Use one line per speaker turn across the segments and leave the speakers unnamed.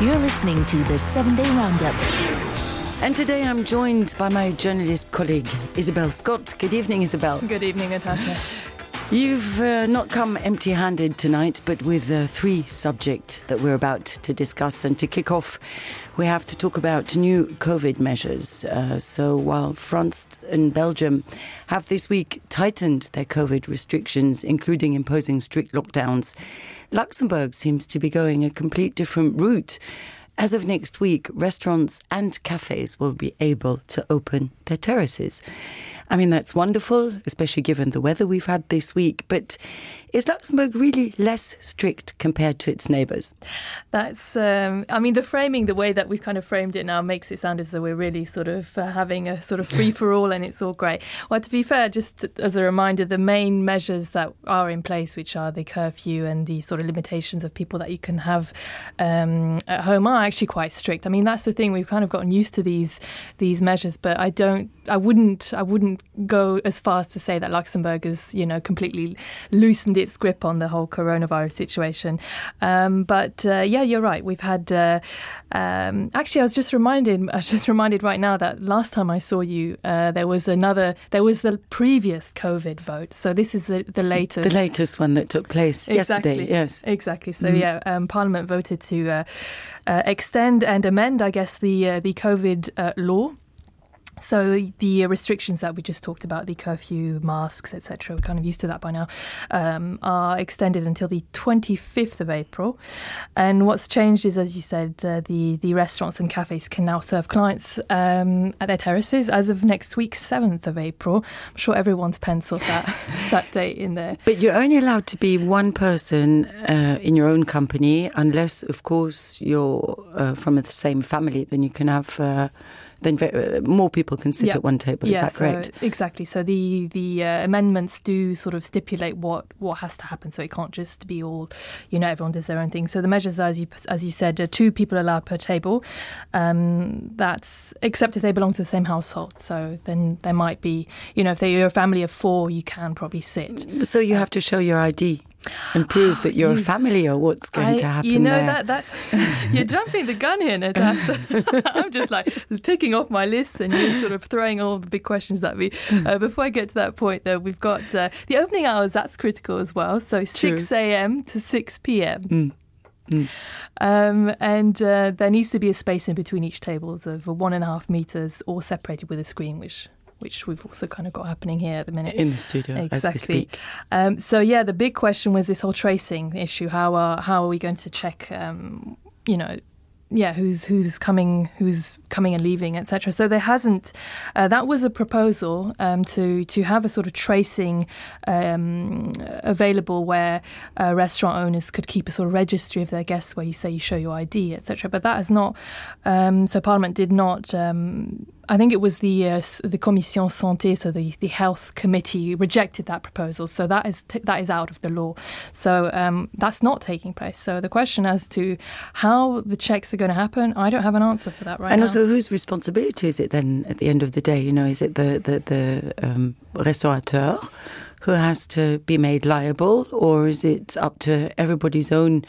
You're listening to the 7-Day Roundup.
And today I'm joined by my journalist colleague, Isabel Scott. Good evening, Isabel.
Good evening, Natasha.
You've not come empty-handed tonight, but with three subjects that we're about to discuss. And to kick off, we have to talk about new COVID measures. So while France and Belgium have this week tightened their COVID restrictions, including imposing strict lockdowns, Luxembourg seems to be going a complete different route. As of next week, restaurants and cafes will be able to open their terraces. I mean, that's wonderful, especially given the weather we've had this week. But is Luxembourg really less strict compared to its neighbours?
That's, the framing, the way that we've kind of framed it now makes it sound as though we're really sort of having a sort of free-for-all and it's all great. Well, to be fair, just as a reminder, the main measures that are in place, which are the curfew and the sort of limitations of people that you can have at home, are actually quite strict. I mean, that's the thing. We've kind of gotten used to these measures, but I wouldn't go as far as to say that Luxembourg has, completely loosened its grip on the whole coronavirus situation. But you're right. We've had actually, I was just reminded right now that last time I saw you, there was the previous COVID vote. So this is the latest. The
latest one that took place yesterday. Yes,
exactly. So Parliament voted to extend and amend, I guess, the COVID law. So the restrictions that we just talked about, the curfew, masks, etc., we're kind of used to that by now, are extended until the 25th of April. And what's changed is, as you said, the restaurants and cafes can now serve clients at their terraces as of next week, 7th of April. I'm sure everyone's penciled that date in there.
But you're only allowed to be one person in your own company, unless, of course, you're from the same family. Then you can have... then more people can sit at one table. Is that correct?
Exactly. So the amendments do sort of stipulate what has to happen. So it can't just be all, everyone does their own thing. So the measures, as you said, 2 people allowed per table. That's except if they belong to the same household. So then there might be, if you're a family of 4, you can probably sit.
So you have to show your ID. And prove that you're a family, or what's going to happen there.
That's you're jumping the gun here, Natasha. I'm just like ticking off my list and you're sort of throwing all the big questions at me. Before I get to that point, though, we've got the opening hours. That's critical as well. So 6 a.m. to 6 p.m. And there needs to be a space in between each tables of 1.5 meters, all separated with a screen, which we've also kind of got happening here at the minute.
In the studio, as we speak.
The big question was this whole tracing issue. How are we going to check, who's coming and leaving, etc. So there hasn't. That was a proposal to have a sort of tracing available where restaurant owners could keep a sort of registry of their guests, where you say you show your ID, etc. But that has not. So Parliament did not. I think it was the Commission Santé, so the health committee, rejected that proposal. So that is out of the law. So that's not taking place. So the question as to how the checks are going to happen, I don't have an answer for that right now.
And also, whose responsibility is it then at the end of the day? Is it the restaurateur who has to be made liable, or is it up to everybody's own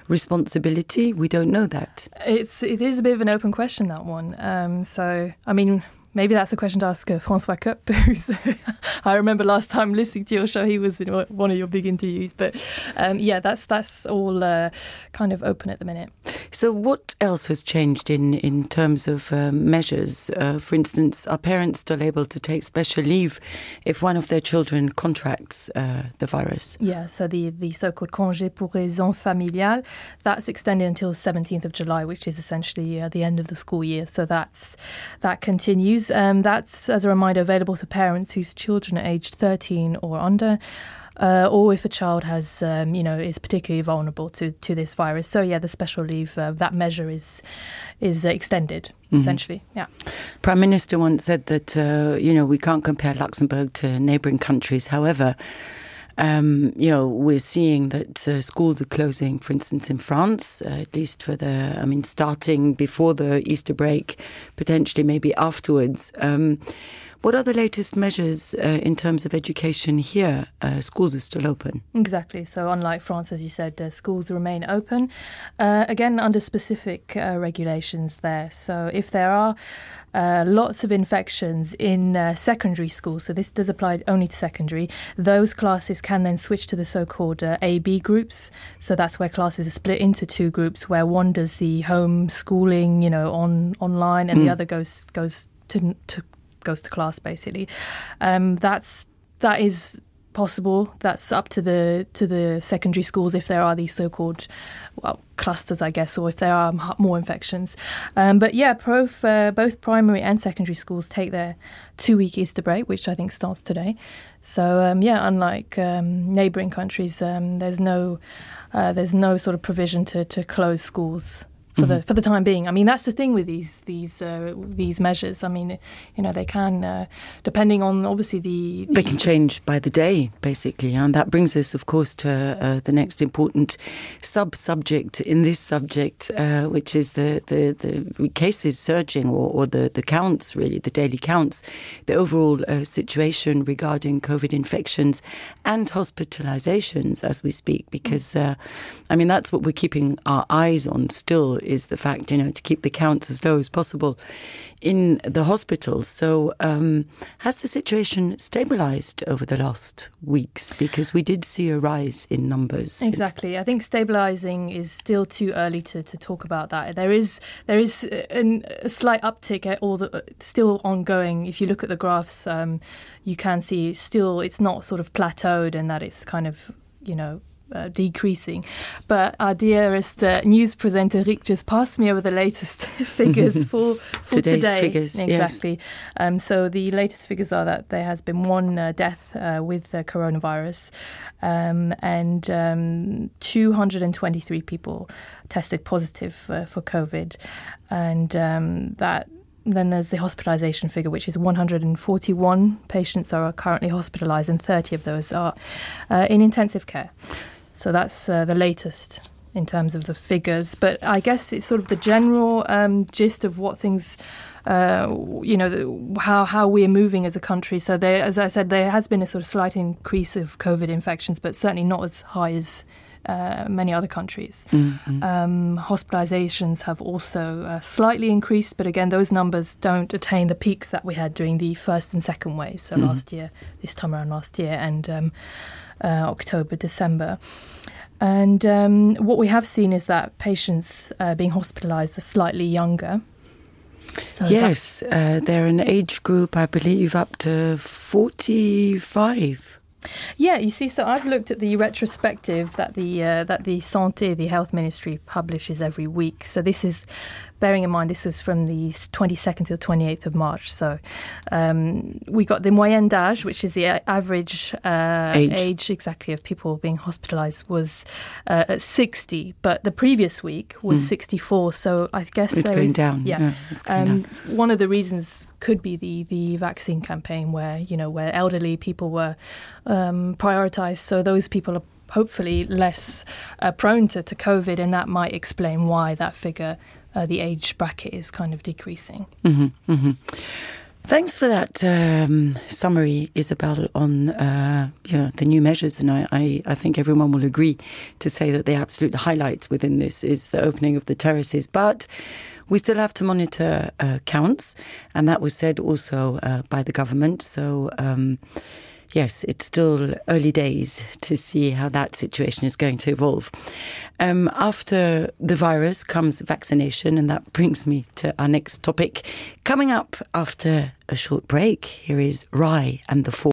responsibility? We don't know that.
It is a bit of an open question, that one. So, I mean, maybe that's a question to ask François Kopp, who's I remember last time listening to your show, he was in one of your big interviews. But that's all kind of open at the minute.
So what else has changed in terms of measures? For instance, are parents still able to take special leave if one of their children contracts the virus?
Yeah, so the so-called congé pour raison familiale, that's extended until 17th of July, which is essentially the end of the school year. So that continues. That's, as a reminder, available to parents whose children are aged 13 or under. Or if a child has, is particularly vulnerable to this virus. So, the special leave, that measure is extended, essentially. Yeah.
Prime Minister once said that, we can't compare Luxembourg to neighbouring countries. However, we're seeing that schools are closing, for instance, in France, at least for starting before the Easter break, potentially maybe afterwards. What are the latest measures in terms of education here? Schools are still open.
Exactly. So unlike France, as you said, schools remain open, again, under specific regulations there. So if there are lots of infections in secondary schools, so this does apply only to secondary, those classes can then switch to the so-called A-B groups. So that's where classes are split into two groups, where one does the home schooling, online, and the other goes to class, basically. That is possible. That's up to the secondary schools if there are these so-called clusters, I guess, or if there are more infections. But yeah, both primary and secondary schools take their 2-week Easter break, which I think starts today. So unlike neighbouring countries, there's no sort of provision to close schools for the time being. I mean, that's the thing with these measures. I mean, they can, depending on obviously they
can change by the day, basically. And that brings us, of course, to the next important sub-subject in this subject, which is the cases surging or the counts, really, the daily counts, the overall situation regarding COVID infections and hospitalizations as we speak, because, that's what we're keeping our eyes on still, is the fact, to keep the counts as low as possible in the hospitals. So has the situation stabilised over the last weeks? Because we did see a rise in numbers.
Exactly. I think stabilising is still too early to talk about that. There is a slight uptick, still ongoing. If you look at the graphs, you can see it's not sort of plateaued, and that it's kind of, decreasing. But our dearest news presenter Rick just passed me over the latest figures for
Today's
today.
Figures,
exactly.
Yes.
So the latest figures are that there has been one death with coronavirus, and 223 people tested positive for COVID, and that. Then there's the hospitalisation figure, which is 141 patients are currently hospitalised, and 30 of those are in intensive care. So that's the latest in terms of the figures. But I guess it's sort of the general gist of what things, how we're moving as a country. So as I said, there has been a sort of slight increase of COVID infections, but certainly not as high as many other countries. Hospitalizations have also slightly increased, but again, those numbers don't attain the peaks that we had during the first and second wave. So this time around last year, and October, December. And what we have seen is that patients being hospitalized are slightly younger. So
yes, they're an age group, I believe, up to 45.
Yeah, you see, so I've looked at the retrospective that the Santé, the Health Ministry, publishes every week. So this is, bearing in mind, this was from the 22nd to the 28th of March. So we got the moyenne d'âge, which is the average age exactly of people being hospitalised, was at 60. But the previous week was 64. So I guess
it's going down.
Yeah,
it's going down.
One of the reasons could be the vaccine campaign, where elderly people were prioritised. So those people are hopefully less prone to COVID, and that might explain why that figure, the age bracket, is kind of decreasing.
Thanks for that summary, Isabel, on the new measures. And I think everyone will agree to say that the absolute highlight within this is the opening of the terraces. But we still have to monitor counts, and that was said also by the government. So yes, it's still early days to see how that situation is going to evolve. After the virus comes vaccination, and that brings me to our next topic. Coming up after a short break, here is Rai and the Four.